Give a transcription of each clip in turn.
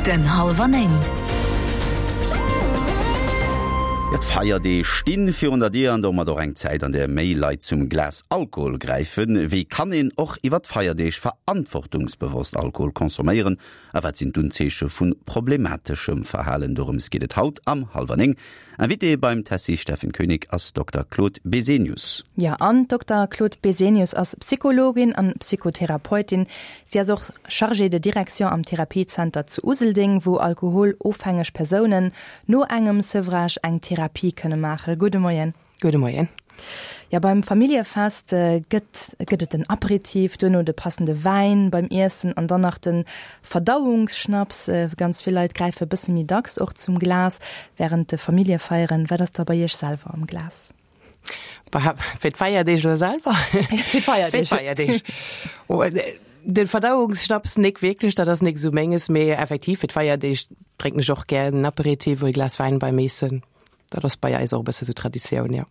Punkten hallwer 9. Jo, d'Feierdeeg stinn virun der Dier an domat och eng Zäit, an där méi Leit zum Glas Alkohol gräifen. Wéi kann een och iwwer d'Feierdeeg verantwortungsbewosst Alkohol consomméieren a wat sinn d'Unzeeche vu problemateschem Verhalen? Dorëms geet et haut am Hallwer 9. Invité beim Tessy Steffen Koenig ass Dokter Claude Besenius. Jo, an d'Dokter Claude Besenius ass Psychologin an Psychotherapeutin. Si ass och Chargée de direction am Therapiezenter zu Useldeng, wou alkoholofhängeg Persounen no engem Sevrage eng Therapie kënne maachen. Gudde Moien. Gudde Moien. Jo, beim Familljefest gëtt gëtt et den Aperitif, duerno de passende Wäin beim Iessen an dann nach de Verdauungsschnaps. Ganz vill Leit gräife bësse méi dacks och zum Glas wärend de Familljefeieren. Wat ass da bei Iech selwer am Glas? Bah, fir d'Feierdeeg elo selwer? Fir d'Feierdeeg. Fir d'Feierdeeg. Oh, de Verdauungsschnaps nik wierklech, dat ass nik esou menges, mee effektiv fir d'Feierdeeg drénken ech och gär en Aperitif oder e Glas Wäin beim Eessen. Dat ass bei eis och e bësse sou Traditioun, jo.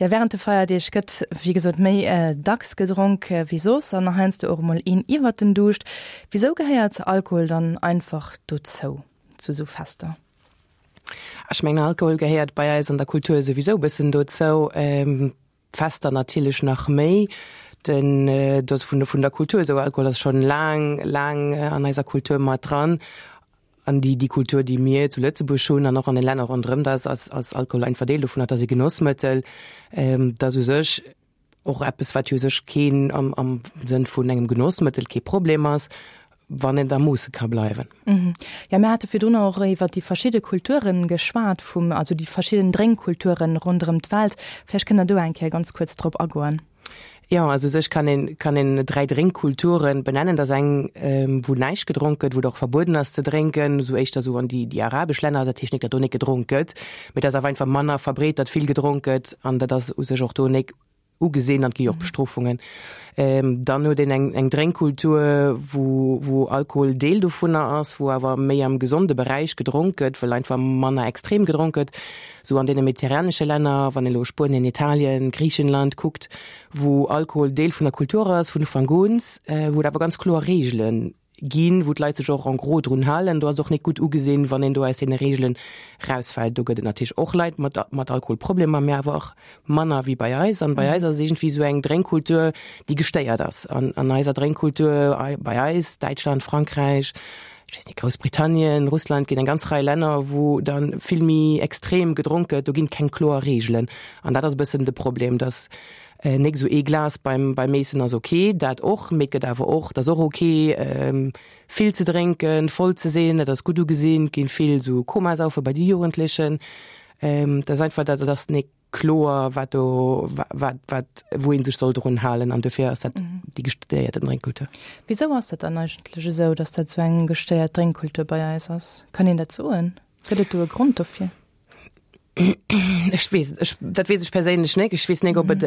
Jo, wärend de Feierdeeg gëtt, wéi gesot, méi dacks gedronk wéi soss an heiansdo och emol een iwwert den Duuscht. Wisou gehéiert Alkohol dann einfach dozou, zu sou Fester? Ech mengen, Alkohol gehéiert bei eis an der Kultur souwisou e bëssen dozou. D'Fester natierlech nach méi. Den, do ass vun, vun der Kultur esou, Alkohol ass schonn laang, laang an eiser Kultur mat dran. An déi, déi Kultur, déi mir zu Lëtzebuerg hunn an och an den Länner ronderëm, da ass, ass, ass Alkohol einfach Deel dovunner, et ass e Genossmëttel. Dat ass u sech och eppes, wat jo u sech keen am, am Sënn vun engem Genossmëttel kee Problem ass, wann et a Moosse ka bleiwen. Jo, mir hate virdrun och iwwer déi verschidde Kulture geschwat vum, also déi verschidden Drénkkulture ronderëm d'Welt. Vläicht kënnt Der do eng Kéier ganz kuerz drop agoen. Jo, also u sech kann een, kann een 3 Drénkkulturen benennen. Dat ass eng, wou näischt gedronk gëtt, wou et och verbueden ass ze drénken, esou éischter esou an déi, déi arabesch Länner. Dat heescht nik, datt do nik gedronk gëtt, mee dat ass awer einfach manner verbreet, datt vill gedronk gëtt an dat ass u sech och do nik ugesinn an et gi jo och Bestrofungen. Dann huet een eng, eng Drénkkultur, wou, wou Alkohol Deel dovunner ass, wou awer méi am gesonde Beräich gedronk gëtt, well einfach manner extrem gedronk gëtt. Esou an deene mediterranesche Länner, wann een elo Spuenien, Italien, Griichenland kuckt, wou Alkohol Deel vun der Kultur ass vun Ufank un, wou et awer ganz kloer Reegele ginn, wou d'Leit sech och en gros drun halen. Do ass et och net gutt ugesinn, wann een do aus deene Reegelen rausfält. Do gëtt et natierlech och Leit mat mat Alkoholproblemer, mä awer och manner wéi bei eis. An bei eis ass et iergendwéi esou eng Drénkkultur, déi gestéiert ass. An an eiser Drénkkultur bei eis, Däitschland, Frankräich, ech weess net, Groussbritannien, Russland, ginn eng ganz Rei Länner, wou da vill méi extrem gedronk gëtt. Do ginn et keng kloer Reegelen. An dat ass e bëssen de Problem, dass nik esou ee Glas beim beim Eessen ass ok, dat och, mee et gëtt awer och, et ass och ok vill ze drénken, voll ze sinn, dat ass gutt ugesinn. Et ginn vill esou Komasaufe bei de Jugendlechen. Dat ass einfach, dat ass nik kloer wat do wat wat wou een sech soll drun halen an dofir ass dat déi gestéierte Drénkkultur. Wisou ass dat dann eigentlech esou, datt dat esou eng gestéiert Drénkkultur bei eis ass? Kann een dat soen? Gëtt et do e Grond dofir? Ech weess ech dat weess ech perséinlech net. Ech weess net ob et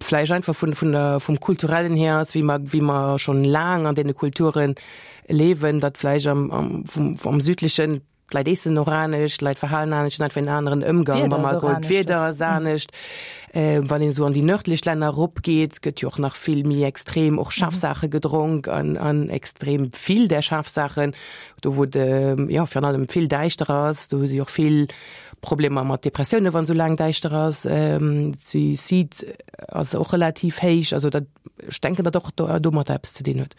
vläicht einfach vun vun der vum kulturellen hier ass, wéi mer wéi mer schonn laang an deene Kulture liewen, datt vläicht am am vum am südlechen D'Leit eessen och anescht, d'Leit verhalen anescht, hunn einfach en aneren Ëmgang mam Alkohol. D'Wieder ass anescht. Wann een esou an déi nërdlech Länner eropgeet, gëtt jo och nach vill méi extrem och schaarf Saache gedronk an an extrem vill där schaarf Saachen. Do wou et jo virun allem vill däischter ass, do hu si och vill Problemer mat Depressioune wann esou laang däischter ass. Suicide ass och relativ héich. Also dat, ech denken, datt och domatter eppes ze dinn huet.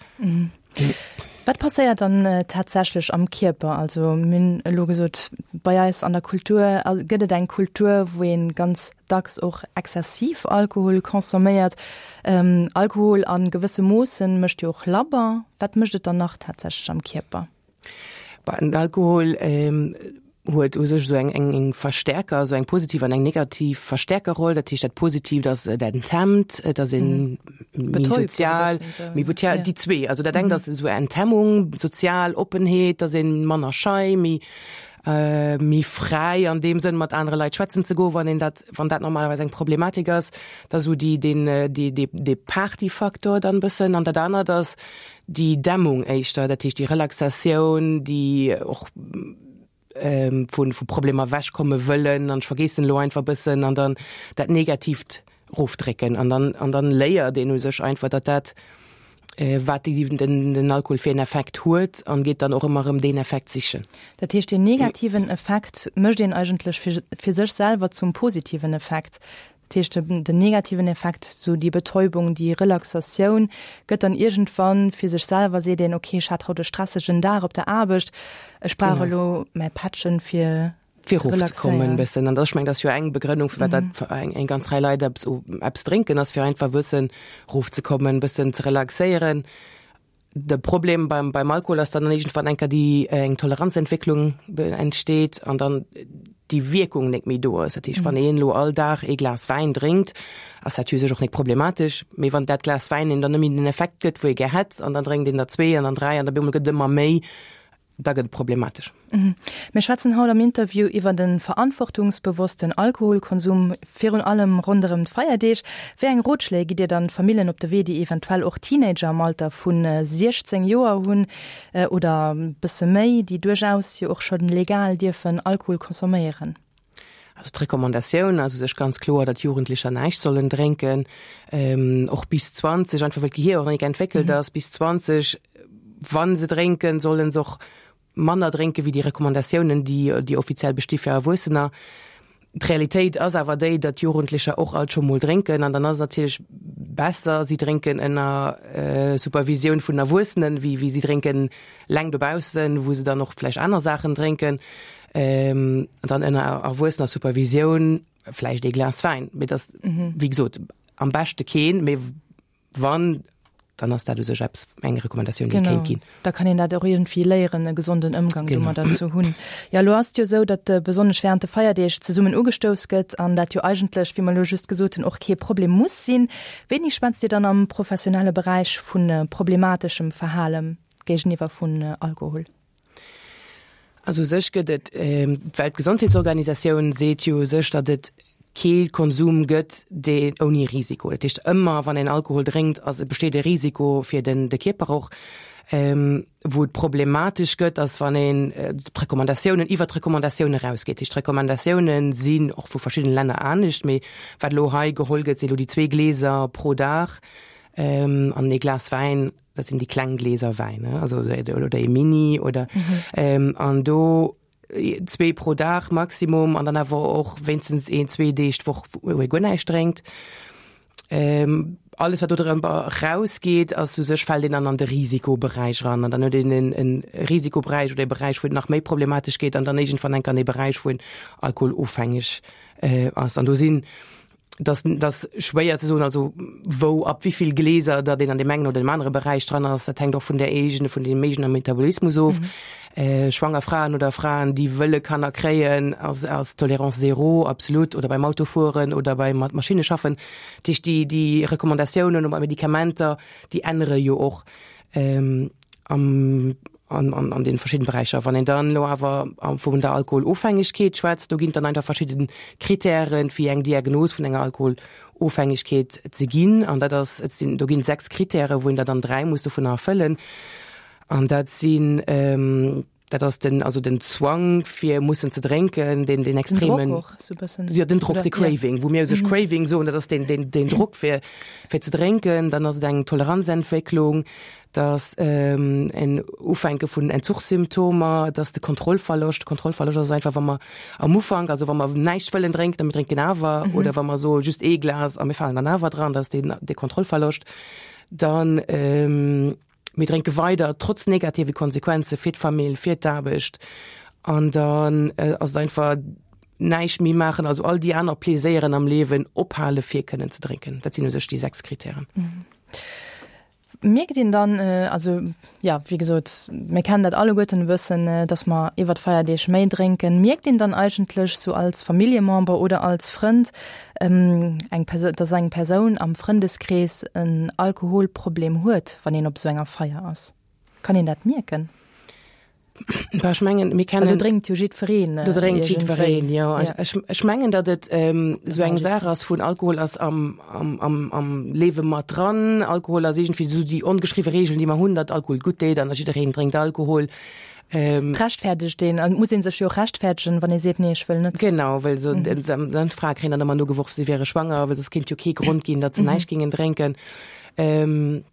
Wat passéiert dann tatsächlech am Kierper? Also mir hunn elo gesot, bei eis an der Kultur gëtt et eng Kultur, wou ee ganz dacks och exzessiv Alkohol consomméiert. Alkohol a gewësse Moossen mécht jo och labber. Wat mécht et dann nach tatsächlech am Kierper? Den Alkohol huet u sech esou eng eng Verstärker, esou eng positiv an eng negativ Verstärkerroll. Dat heescht dat Positiivt ass, et enthemmt, et ass een méi sozial, méi ja, déi zwee. Also dat engt ass esou Enthemmung, sozial Oppenheet, dass een manner schei, méi méi fräi an deem Sënn mat anere Leit schwätzen ze goen, wann een dat, wann dat normalerweis eng Problematik ass. Da sou déi deen dee dee dee Partyfaktor dann bëssen. An dat anert ass déi Dämmung éischter, dat heescht déi Relaxatioun, déi och vu vu Problemer ewechkomme wëllen an ech vergeessen elo einfach e bëssen an dann dat Negatiivt erofdrécken an dann an dann léiert een u sech einfach, datt dat. Wat den Alkohol fir en Effekt huet an geet dann och ëmmer erëm deen Effekt sichen. Dat heescht, deen negativen Effekt mécht een eigentlech fir sech selwer zum positiven Effekt. Dat heescht, den negativen Effekt, sou déi Betäubung, déi Relaxatioun, gëtt dann iergendwann fir sech selwer, seet een, okay, ech hat haut e stressegen Dag op der Aarbecht, ech brauch elo mäi Pättchen fir fir erofzekommen e bëssen. An ech mengen, dat ass jo eng Begrënnung, firwat dat eng, eng ganz Rei Leit eppes, eppes drénken, ass fir einfach e bëssen erofzekommen, e bëssen ze relaxéieren. De Problem beim, beim Alkohol ass dann iergendwann eng Kéier déi eng Toleranzentwécklung entsteet an dann déi Wierkung net méi do ass. Dat heescht, wann een elo all Dag ee Glas Wäin drénkt, ass dat jo u sech och net problematesch. Mee wann dat Glas Wäin een dann net méi den Effekt gëtt, wou ee gär hätt, an dann drénkt een der zwee an dann dräi an op eemol gëtt et ëmmer méi, da gëtt et problematesch. Mir schwätzen haut am Interview iwwer de verantwortungsbewossten Alkoholkonsum, virun allem ronderëm d'Feierdeeg. Wéi eng Rotschléi gitt Dir dann Famillen op de Wee, déi eventuell och Teenager am Alter vu 16 Joer hunn oder bësse méi, déi duerchaus jo och scho legal dierfen Alkohol consomméieren? Also d'Recommandatioun ass u sech ganz kloer, datt Jugendlecher näischt sollen drénken, och bis 20, einfach well d'Gehier och nach nik entwéckelt ass. Bis 20, wa se drénken, solle se och manner drénke wéi déi Recommandatiounen, déi déi offiziell besti fir Erwuessener. D'Realitéit ass awer déi, datt Jugendlecher och alt scho mol drénken an dann ass et natierlech besser, si drénken ënner Supervisioun vun Erwuessenen, wéi wéi si drénken leng dobaussen, wou se dann och vläicht aner Saachen drénken. Ähm, dann ënner erwuessener Supervisioun vläicht ee Glas Wäin. Mee das, mhm. wéi gesot, am beschte keen, mee wann, dann ass dat u sech eppes, eng Recommandatioun, déi kéint ginn. Da kann een dat och iergendwéi léieren, e gesonden Ëmgang domadder ze hunn. Jo, elo ass et jo esou, datt besonnesch während de Feierdeeg zesummen ugestouss gëtt an dat jo eigentlech, wéi mer elo just gesot hunn, och kee Problem muss sinn. Wéini schwätzt Dir dann am professionelle Beräich vu problemateschem Verhale géigeniwwer vun Alkohol? Also u sech gëtt et, d'Weltgesondheetsorganisatioun seet jo u sech, datt et kee Konsum gëtt, dee ouni Risiko. Dat heescht, ëmmer wann een Alkohol drénkt, ass, besteet e Risiko fir den, de Kierper och. Wou et problematesch gëtt, ass wann een d'Recommandatiounen, iwwert d'Recommandatioune erausgeet. Dat heescht, d'Recommandatioune sinn och vu verschiddene Länner anescht, mee wat elo hei geholl gëtt, si elo déi zwee Gläser pro Dag an ee Glas Wäin. Dat sinn déi kleng Gläser Wäin, ne? Also oder ee Mini oder mhm. an do zwee pro Dag Maximum an dann awer och wéinstens een zwee Deeg d'Woch wou ee guer näischt drénkt. Ähm, alles wat do drëmmer rausgeet, ass u sech fält een dann an de Risikoberäich ran an dann huet een en, en Risikoberäich oder e Beräich, wou et nach méi problematesch geet an dann iergendwann enk an e Beräich, wou een alkoholofhängeg äh, ass. An do sinn dass dass schwéier ze soen, also wou ab wéivill Gläser datt een an deem engen oder deem anere Beräich dran ass, dat hänkt och vun der eegene vun deem eegene Metabolismus of. Mhm. Äh, schwanger Fraen oder Fraen, déi wëlle Kanner kréien, ass ass Tolerance zéro absolut oder beim Autofueren oder beim mat Maschinne schaffen. Dat heescht déi déi Recommandatiounen bei Medikamenter, déi ännere jo och. Ähm, am an, an, an den verschiedenen Beräicher. Wann een dann elo awer vun der Alkoholofhängegkeet schwätzt, do ginn dann einfach verschidden Kritären fir eng Diagnos vun enger Alkoholofhängegkeet ze ginn. An dat ass, et sinn, do ginn 6 Kritären, wou een der dann 3 muss dovunner erfëllen. An dat sinn, ähm, dat ass den, also den Zwang fir mussen ze drénken, den, den extremen. Den Drock och, sou bëssen. Jo, den Drock, de Craving, wou mir u sech Craving soen, dat ass den, den, den Drock fir, fir ze drénken. Dann ass et eng Toleranzentwécklung, dass en Ufänke vun Entzuchssymptomer, dass de Kontrollverloscht, Kontrollverloscht ass einfach, wa mer am Ufank, also wa mer näischt wëllen drénken a mir drénken awer, mhm. oder wa mer soe just ee Glas a mir falen dann awer dran, dass den de Kontrollverloscht, dann ähm, mir drénke weider trotz negative Konsequenze fir d'Famill, fir d'Aarbecht an dann äh, ass et einfach näischt méi maachen, also all déi aner Pleséieren am Liewen ophale fir kënnen ze drénken. Dat sinn u sech déi 6 Kritären. Mhm. Mierkt een dann, also jo, wéi gesot, mir kennen dat alleguerten e bëssen, dass mer iwwer d'Feierdeeg méi drénken. Mierkt een dann eigentlech sou als Familljemember oder als Frënd, eng Persoun, dass eng Persoun am Frëndeskrees en Alkoholproblem huet, wann een op esou enger Feier ass? Kann een dat mierken? Bah, ech mengen, mir kennen. Do drénkt jo jiddwereen. Do drénkt jiddwereen, jo. Ja. Ech, ech mengen, datt et ähm, esou eng Saach ass vun Alkohol ass am, am, am, am Liewe mat dran. Alkohol ass iergendwéi esou déi ongeschriwwe Reegel, déi mer hunn, datt Alkohol gutt deet an jiddereen drénkt Alkohol. Ähm, Rechtfäerdegt een, an et muss ee sech jo och rechtfäerdegen, wann ee seet, nee, ech wëll net. Genau, well so, mhm. dann d'Frae kréien dann ëmmer nogeworf, si wäre schwanger, well et kéint jo kee Grond ginn, datt se mhm. näischt gingen drénken. Ähm,.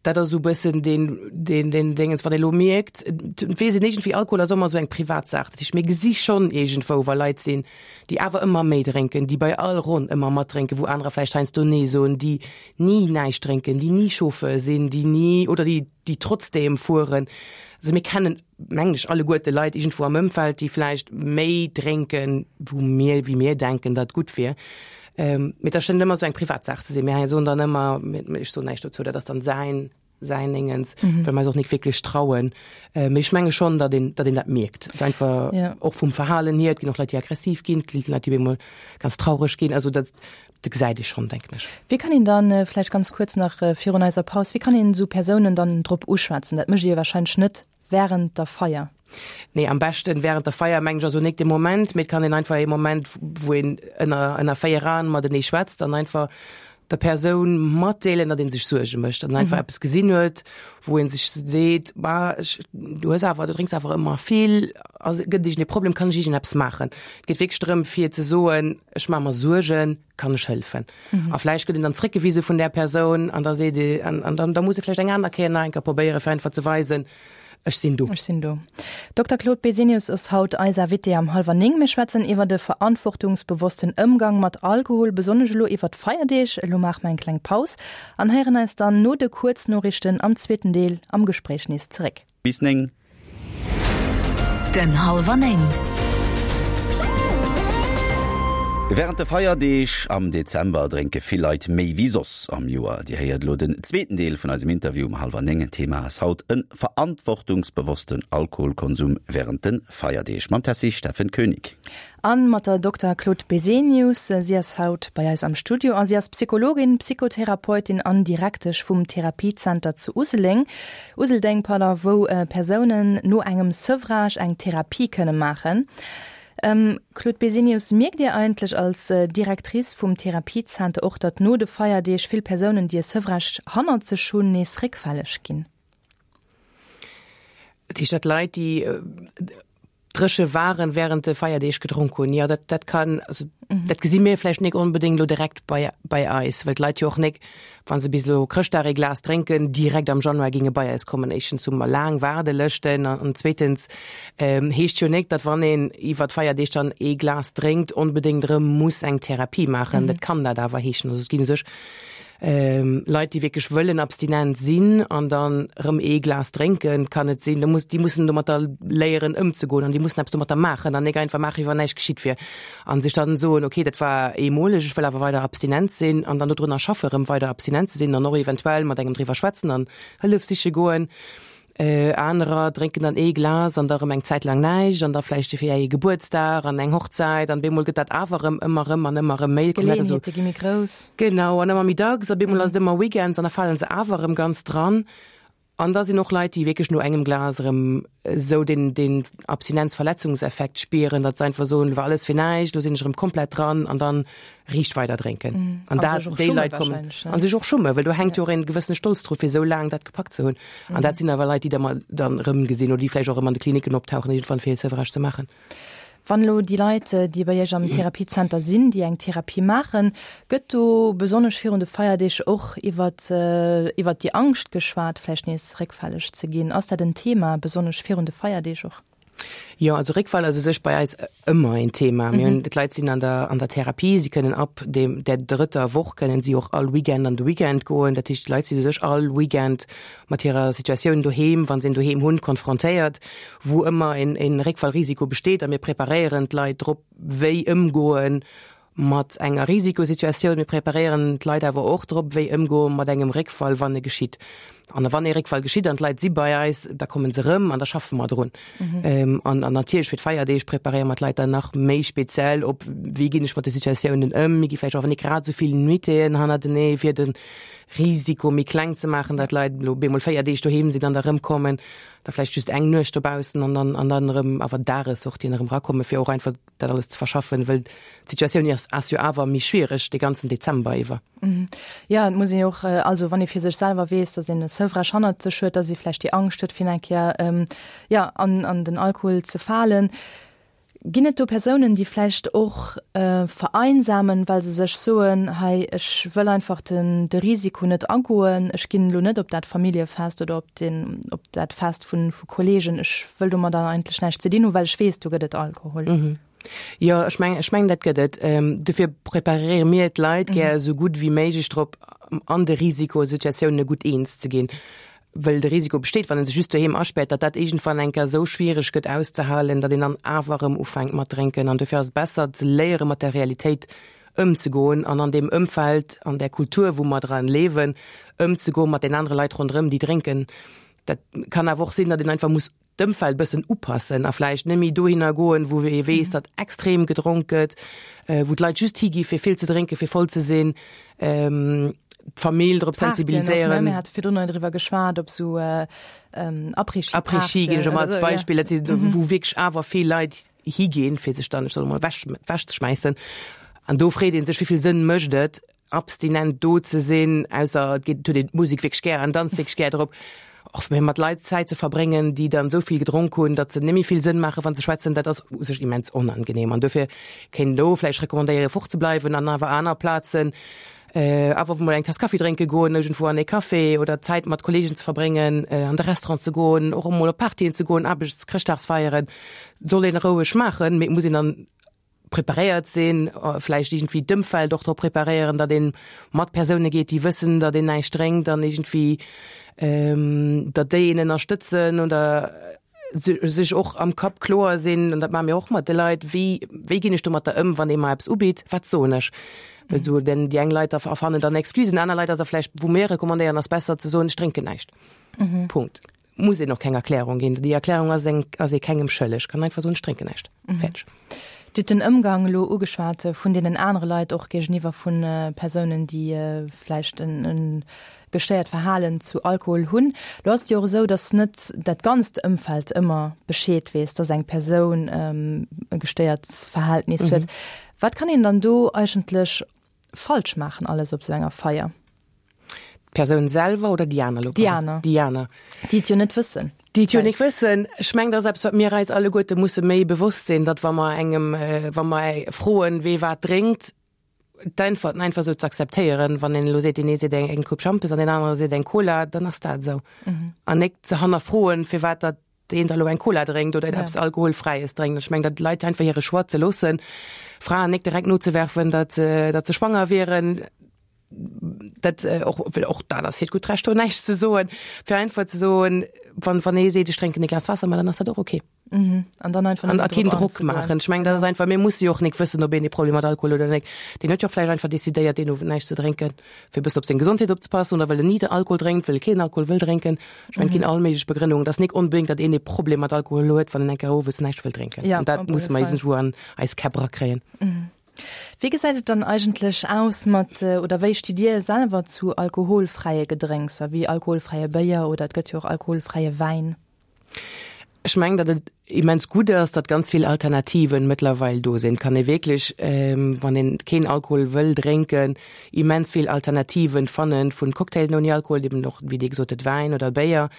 Dat ass esou e bëssen deen, deen, deen Déngens, wann ee lo mierkt, et weess een iergendwéi, Alkohol ass ëmmer esou eng privat Saach. Dat heescht, mir gesi schonn iergendwou, wa Leit sinn, déi awer ëmmer méi drénken, déi bei all Ronn ëmmer matdrénken, wou anerer vläicht heiansdo Nee soen, déi ni näischt drénken, déi ni Chauffeur sinn, déi ni oder déi, déi trotzdeem fueren. Also mir kennen, mengen ech, alleguerte Leit iergendwou am Ëmfeld, déi vläicht méi drénken, wou mir, wéi mir denken, datt gutt wier. Mee dat schéngt ëmmer esou eng Privatsaach ze sinn. Mir soen dann ëmmer, ech soen näischt dozou, dat ass dann säin, säin Déngens, well mer eis och nik wierklech trauen. Mee ech menge schonn, datt een, datt een dat mierkt. Et einfach och vum Verhalen hier, et ginn och Leit, déi aggressiv ginn, et gi Leit, déi op eemol ganz traureg ginn. Also dat, dat gesäit ee schonn, denken ech. Wéi kann een dann, vläicht ganz kuerz nach virun eiser Paus, wéi kann een esou Persounen dann drop uschwätzen? Dat mécht Dir wahrscheinlech net Während der Feier? Nee, am beschten während der Feier mengen ech ass o nik de Moment, mee et kann een einfach ee Moment wou een ënner ënner 4 Aen matenee schwätzt an einfach der Persoun matdeelen, datt een sech Suerge mécht, datt een einfach eppes gesinn huet, wou een sech seet, bah ech du hues awer du drénks awer ëmmer vill, ass gëtt et iergend ee Problem, kann ech iergend eppes maachen? Et geet wierklech drëm fir ze soen, ech maache mer Suergen, kann ech hëllefen? Mhm. A vläicht gëtt een dann zréckgewise vun där Persoun an da seet ee, an, an dann, da muss e vläicht eng aner Kéier nach eng Kéier probéieren, fir einfach ze weisen, ech sinn do. Ech sinn do. Dokter Claude Besenius ass haut eis Invité am Hallwer 9. Mir schwätzen iwwer de verantwortungsbewossten Ëmgang mat Alkohol, besonnesch elo iwwer d'Feierdeeg. Elo maache mer eng kleng Paus an héieren eis dann no de Kuerznoriichten am zweeten Deel am Gespréich nees zeréck. Bis 9. Den Hallwer 9. Wärend de Feierdeeg am Dezember drénke vill Leit méi wéi soss am Joer. Dir héiert elo den zweeten Deel vun eisem Interview um hallwer 9. Thema ass haut e verantwortungsbewossten Alkoholkonsum wärend de Feierdeeg mam Tessy Steffen Koenig. An mat der Dokter Claude Besenius. Si ass haut bei eis am Studio a si ass Psychologin, Psychotherapeutin an Direktesch vum Therapiezenter zu Useléng, Useldeng, pardon, wou Persounen no engem Sevrage eng Therapie kënne maachen. Claude Besenius, mierkt Dir eigentlech als Directrice vum Therapiezenter och, datt no de Feierdeeg vill Persounen, déi e Sevrage hannert sech hunn, nees réckfälleg ginn? Dat heescht, datt Leit, déi dréche waren, während de Feierdeeg gedronk hunn. Jo, dat, dat kann, also dat gesi mir vläicht nik onbedéngt elo direkt bei, bei eis, well d'Leit jo och nik, wa se bis elo Chrëschtdag ee Glas drénken, direkt am Januar géinge bei eis kommen. Éischtens hu mer laang Waardelëschten an, an zweetens heescht jo nik, datt wann een iwwer d'Feierdeeg dann ee Glas drénkt, onbedéngt erëm muss eng Therapie maachen. Dat kann dat awer heeschen. Also et ginn u sech Leit, déi wierklech wëllen abstinent sinn an dann erëm ee Glas drénken, kann et sinn, da muss, déi mussen domatter léieren ëmzegoen an déi mussen eppes domatter maachen an nik einfach maachen, wéi wann näischt geschitt wier an sech dann soen, okay, dat war eemoleg, ech wëll awer weider abstinent sinn an dann dodrunner schaffe erëm weider abstinent ze sinn an och eventuell mat engem driwwer schwätzen an Hëllef siche goen. Anerer drénken dann ee Glas an da rëm eng Zäit laang näischt an da vläicht fir ee Gebuertsdag an eng Hochzäit an bemol gëtt dat awer erëm ëmmer erëm an ëmmer erëm méi. D'Geleeënheete gi méi grouss. Genau, an ëmmer méi dacks a bemol ass et ëmmer Weekends an da fale se awer erëm ganz dran. An da sinn och Leit, déi wierklech no engem Glas erëm esou deen, deen Abstinenzverletzungseffekt spieren, datt se einfach soen, elo war alles fir näischt, elo sinn ech erëm komplett dran an dann riicht weider drénken. An dat, déi Leit kommen an sech och schummen, well do hänkt jo och een gewëssene Stolz dru fir esou laang dat gepackt ze hunn. An dat sinn awer Leit, déi da mer dann erëmgesinn oder déi vläicht och erëm an de Klinicken optauchen iergendwann fir hir Sevrage ze maachen. Wann elo déi Leit, déi bei Iech am Therapiezenter sinn, déi eng Therapie maachen, gëtt do besonnesch virun de Feierdeeg och iwwert iwwert déi Angscht geschwat, vläicht nees réckfälleg ze ginn? Ass dat en Thema, besonnesch virun de Feierdeeg och? Jo, also Réckfall ass u sech bei eis ëmmer een Thema. Mir hunn, d'Leit sinn an der, an der Therapie, si kënnen ab dem, der drëtter Woch kënnen si och all Weekend an de Weekend goen. Dat heescht, d'Leit sinn u sech all Weekend mat hirer Situatioun doheem, wa se een doheem hunn, konfrontéiert, wou ëmmer een, een Réckfallrisiko besteet. A mir preparéieren d'Leit drop, wéi ëmgoen mat enger Risikosituatioun. Mir preparéieren d'Leit awer och drop, wéi ëmgoe mat engem Réckfall, wann e geschitt. An wann ee Réckfall geschitt an d'Leit si bei eis, da komme se erëm an da schaffe mer drun. An an natierlech fir d'Feierdeeg preparéiere mer d'Leit dann nach méi speziell op, wéi ginn ech mat de Situatiounen ëm. Mir gi vläicht och net grad esou vill Nuitéen hannertenee, fir de Risiko méi kleng ze maachen, datt d'Leit elo bemol 4 Deeg doheem sinn an da erëmkommen, da vläicht just eng Nuecht dobaussen an dann an dann erëm awer Dagessortien erëm erakommen, fir och einfach dat alles ze verschaffen, wëll d'Situatioun ass, ass jo awer méi schwiereg de ganzen Dezember iwwer. Jo, et muss een jo och, also wann ee fir sech selwer weess, datt een e Sevrage hannert sech huet, datt ee vläicht déi Angscht huet, fir eng Kéier, jo, an, an den Alkohol ze falen. Ginn et do Persounen, déi vläicht och vereinsamen, well se sech soen, hei ech wëll einfach den de Risiko net agoen, ech ginn elo net op dat Familljefest oder op den op dat Fest vu vu Kolleegen, ech wëll domadder eigentlech näischt ze dinn hunn, well ech weess, do gëtt et Alkohol? Jo, ech mengen, ech mengen dat gëtt et. Dofir preparéiere mir d'Leit gär esou gutt wéi méiglech drop, an de Risikosituatiounen gutt eens ze ginn. Wëll de Risiko besteet, wann ee sech just doheem aspäert, datt dat iergendwann eng Kéier esou schwiereg gëtt auszehalen, datt een dann awer erëm ufänkt mat drénken. An dofir ass et besser ze léiere mat der Realitéit ëmzegoen an an deem Ëmfeld, an där Kultur, wou mer dran liewen, ëmzegoen mat den anere Leit ronderëm, déi drénken. Dat kann awer och sinn, datt een einfach muss d'Ëmfeld bëssen upassen a vläicht net méi dohinner goen, wou ee weess, datt extrem gedronk gëtt, wou d'Leit just higi fir vill ze drénken, fir voll ze sinn, d'Famill drop sensibiliséieren. Mir hate virdrun driwwer geschwat, op sou Après-Ski-Partyen. Après-Ski ginn ech ëmmer als Beispill, dat si wou wierklech awer vill Leit higinn, fir sech dann, ech soe mol, ewech ewechzeschmäissen. An do freet ee sech, wéi vill Sënn mécht et, abstinent do ze sinn, ausser et geet, huet een d'Musek wierklech gär an danzt wierklech gär drop, och méi mat Leit Zäit ze verbréngen, déi dann esou vill gedronk hunn, datt se net méi vill Sënn maachen, wa se schwätzen, dat ass u sech immens onangenehm. An dofir kéint een do vläicht recommandéieren, fort ze bleiwen an awer aner Plazen awer mol eng Taass Kaffi drénke goen, iergendwou an ee Café oder Zäit mat Kolleegen ze verbréngen, an de Restaurant ze goen, och emol op Partyen ze goen, Aarbechts-, Chrëschtdagsfeieren, soll een roueg maachen, mee et muss een dann preparéiert sinn, vläicht iergendwéi d'Ëmfeld och drop preparéieren, datt ee mat Persoune geet, déi wëssen, datt een näischt drénkt an iergendwéi datt déi een ënnerstëtzen oder sech och am Kapp kloer sinn, an dat maache mir och mat de Leit, wéi wéi ginn ech domatter ëm, wann ee mer eppes ubitt, wat soen ech? Well esou denn déi eng Leit erfannen dann Excusen, aner Leit ass da vläicht, wou mir recommandéieren, ass besser ze soen, ech drénken näischt. Punkt. Muss een och keng Erklärung ginn. Déi Erklärung ass eng, ass ee kengem schëlleg. Kann einfach soen, ech drénken näischt. Fäerdeg. Dir hutt den Ëmgang elo ugeschwat vun deenen anere Leit, och géigeniwwer vu Persounen, déi vläicht e gestéiert Verhalen zu Alkohol hunn. Elo ass et jo och esou, datt net dat ganzt Ëmfeld ëmmer Bescheed weess, datt eng Persoun e gestéiert Verhältnis huet. Wat kann een dann do eigentlech falsch maachen alles op esou enger Feier? D'Persoun selwer oder déi aner? Déi aner. Déi aner. Déi et jo net wëssen. Déi et jo net wëssen. Ech mengen, dat ass eppes, wat mir eis alleguerte musse méi bewosst sinn, datt wa mer engem, wa mer froen, wee wat drénkt, d'Äntwerten einfach esou ze akzeptéieren. Wann een elo seet, deen ee seet eng Coupe Schampes an deen anere seet eng Cola, dann ass dat esou. An nik ze hannerfroen, firwat datt deen da lo eng Cola drénkt oder eppes Alkoholfräies drénkt. Ech mengen, datt d'Leit einfach hire Choix ze loossen, Fraen nik direkt nozewerfen, datt datt se schwanger wieren, dat och, well och dat ass hiert gutt Recht, do näischt ze soen, fir einfach ze soen, wann wann ee seet, ech drénken e Glas Waasser, ma dann ass dat och okay. Mhm. An dann einfach An a keen Drock maachen. Ech mengen, dat ass einfach, mir musse jo och nik wëssen, ob een e Problem mat Alkohol huet oder nik. Deen huet jo och vläicht einfach decidéiert, deen Owend näischt ze drénken, fir e bëssen op seng Gesondheet opzepassen oder well en ni de Alkohol drénkt, well e keen Alkohol wëll drénken. Ech mengen, et ginn all méiglech Begrënnungen. Et ass nik onbedéngt, datt een e Problem mat Alkohol huet, wann en eng Kéier owes näischt wëll drénken. Ja, An dat op alle musse mer Fall. iergendwou an eis Käpp erakréien. Wéi gesäit et dann eigentlech aus mat, oder wéi stitt Dir selwer zu alkoholfräie Gedrénkser, wéi alkoholfräie Béier oder et gëtt jo och alkoholfräie Wäin? Ech mengen, datt et immens gutt ass, datt ganz vill Alternativen mëttlerweil do sinn. Et kann ee wierklech, wann een keen Alkohol wëll drénken, immens vill Alternativen fannen, vun Cocktailen ouni Alkohol, eben och, wéi Dir gesot hutt, Wäin oder Béier.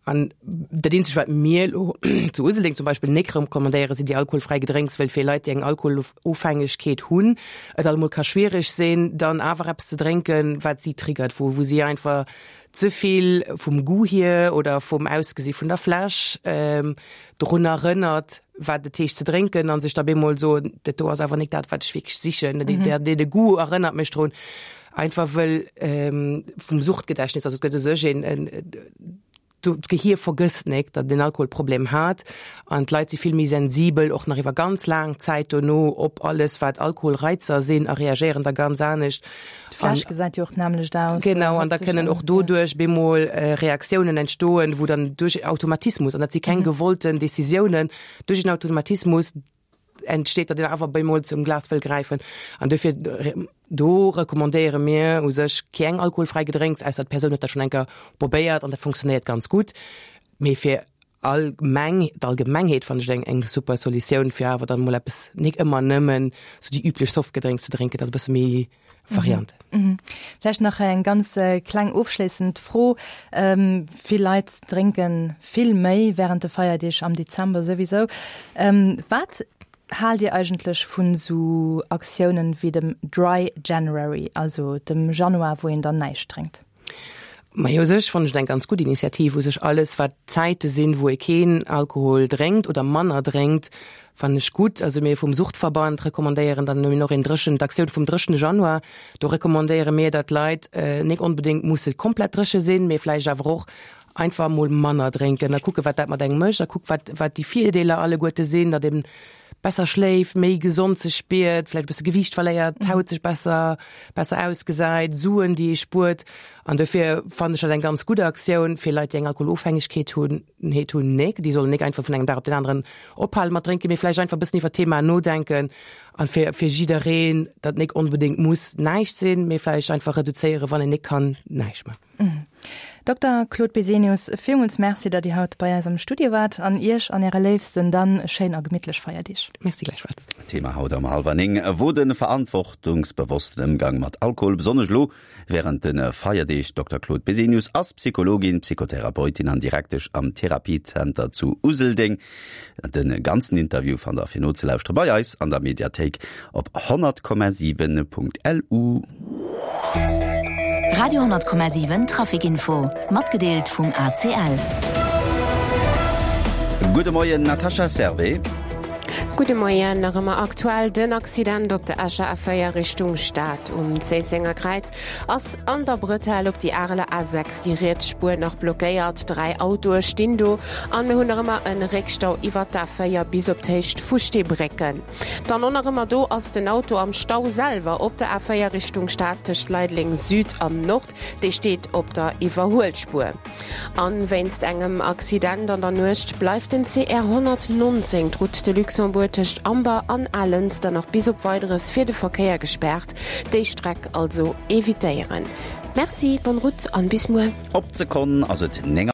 An dat eenzegt, wat mir elo zu Useldeng zum Beispill nik recommandéieren, sinn déi alkoholfräi Gedrénks, well fir Leit, déi eng Alkoholofhängegkeet hunn, et allemol ka schwiereg sinn, dann awer eppes ze drénken, wat si triggert, wou wou si einfach ze vill vum Goût hier oder vum Ausgesi vun der Fläsch drun erënnert, wat et heescht ze drénken an sech da bemol soen, dat do ass awer nik dat, wat ech wierklech sichen, dee de Goût erënnert mech drun. Einfach wëll vum Suchtgedächtnis, also et gëtt u sech een, d'Gehier vergësst nik, datt et een Alkoholproblem hat an d'Leit si vill méi sensibel och nach iwwer ganz laang Zäit dono op alles wat Alkoholreizer sinn a reagéieren da ganz anescht. D'Fläsch gesäit jo och d'nämmlecht aus. Genau, an da kënnen och doduerch bemol Reaktiounen entstoen, wou dann duerch Automatismus, an dat si keng gewollten Decisiounen, duerch en Automatismus entsteet, datt een awer bemol zum Glas wëll gräifen. An dofir do recommandéiere mir u sech keng alkoholfräi Gedrénks, ausser d'Persoun huet dat schonn eng Kéier probéiert an dat funktionéiert ganz gutt. Mee fir. allgemeng, d'Allgemengheet fannen ech eng eng super Solutioun fir awer dann mol eppes nik ëmmer nëmmen sou déi üblech Softgedrénks ze drénken, dat ass e bësse méi Varianten. Mhm. Vläicht nach eng ganz kleng ofschléissend Fro. Vill Leit drénke vill méi wärend de Feierdeeg am Dezember souwisou. Wat haalt Dir eigentlech vun esou Aktiounen wéi dem Dry January, also dem Januar, wou een dann näischt drénkt? Majo, u sech fannen ech et eng ganz gutt Initiativ. U sech alles, wat Zäite sinn, wou ee keen Alkohol drénkt oder manner drénkt, fannen ech gutt. Also mir vum Suchtverband recommandéieren dann och een dréchen, d'Aktioun vum dréchene Januar. Do recommandéiere mir, datt d'Leit nik onbedéngt musse komplett dréche sinn, mee vläicht awer och einfach emol manner drénken a kucke wat dat mat engem mécht a kuckt, wat, wat déi Virdeeler alleguerte sinn, datt een besser schléift, méi gesond sech spiert, vläicht e bësse Gewiicht verléiert, d'Haut sech besser, besser ausgesäit, Suen, déi ee spuert. An dofir fannen ech dat eng ganz gutt Aktioun fir Leit, déi eng Alkoholofhängegkeet hunn, heet hunn, nik, déi sollen nik einfach vun engem Dag op den aneren ophale mat drénken, mee vläicht einfach e bëssen iwwer d'Thema nodenken an fir, fir jiddereen, datt nik onbedéngt muss näischt sinn, mee vläicht einfach reduzéieren, wann een nik kann näischt man. Dokter Claude Besenius, villmools Merci, datt Dir haut bei eis am Studio waart an Iech an Äre Léifsten dann schéin a gemittlech Feierdeeg. Merci gläichfalls. Thema haut am Halwer 9 wor de verantwortungsbewossten Ëmgang mat Alkohol, besonnesch elo wärend de Feierdeeg. Dokter Claude Besenius ass Psychologin, Psychotherapeutin an Direktesch am Therapiezenter zu Useldeng. De ganzen Interview fannt der fir nozelauschteren bei eis an der Mediathéik op 100,7.lu. Radio 10,7 Traficinfo, matgedeelt vum ACL. Gudde Moien Natascha Servais. Gudde Moien, nach ëmmer aktuell den Accident op der Escher A4 Richtung Stad. Um Zéissenger Kräiz ass an der Bretelle op déi Areler A6 déi riets Spuer nach blockéiert. 3 Autoe stinn do an mir hunn nach ëmmer e Réckstau iwwert d'A4 bis op d'Héicht vu Steebrécken. Dann och nach ëmmer do ass den Auto am Stau selwer op der A4 Richtung Stad tëscht Leideleng Süd an Nord. Dee steet op der Iwwerhuelspuer. An wéinst engem Accident an der Nuecht bleift den CR 119, d'Route de Luxembourg tëscht Amber an Alënster nach bis op Weideres fir de Verkéier gespaart. Déi Streck also evitéieren. Merci, bonne route an bis muer. Op d'Sekonn ass et 9.